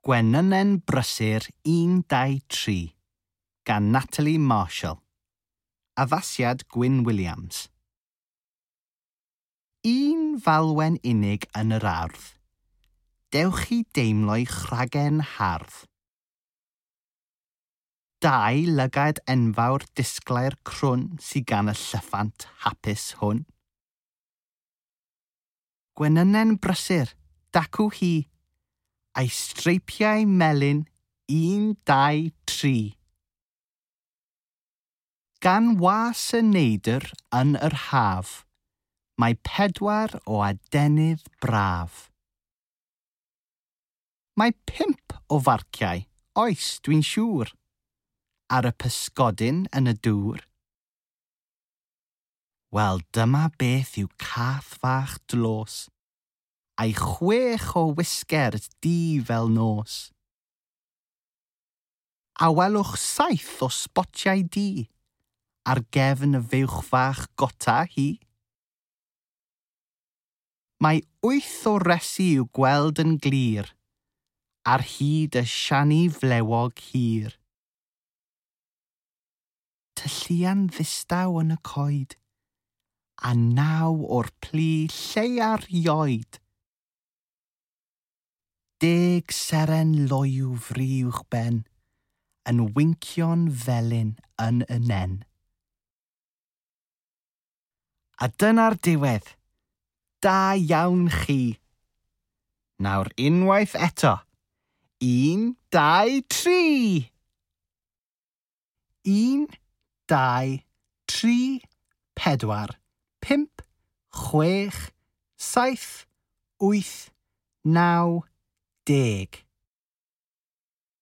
Gwenynen Brysur 1, 2, 3 gan Natalie Marshall. Addasiad Gwyn Williams. Un falwen unig yn yr ardd. Dewch i deimlo'i chragen hardd. Dau lygad enfawr disglair crwn sydd gan y llyffant hapus hwn. Gwenynen brysur, dacw hi, a'i streipiau melyn 1, 2, 3. Gan was y neidr yn yr haf, mae 4 o adenydd braf. Mae 5 o farciau, oes dwi'n siŵr, ar y pysgodyn yn y dŵr. Wel, dyma beth yw cath fach dlos, a'i 6 o wisgers du fel nos. A welwch 7 o sbotiau du ar gefn y fuwch fach gota hi. Mae 8 o resi i'w gweld yn glir ar hyd y siani flewog hir. Tylluan ddistaw yn y coed, a 9 o'r plu lleia'r ioed. 10 seren loyw fri uwchben, yn wincio'n felyn yn y nen. A dyna'r diwedd. Da iawn chi. Nawr unwaith eto. 1, 2, 3. 1, 2, 3, 4, 5, 6, 7, 8, 9, 10.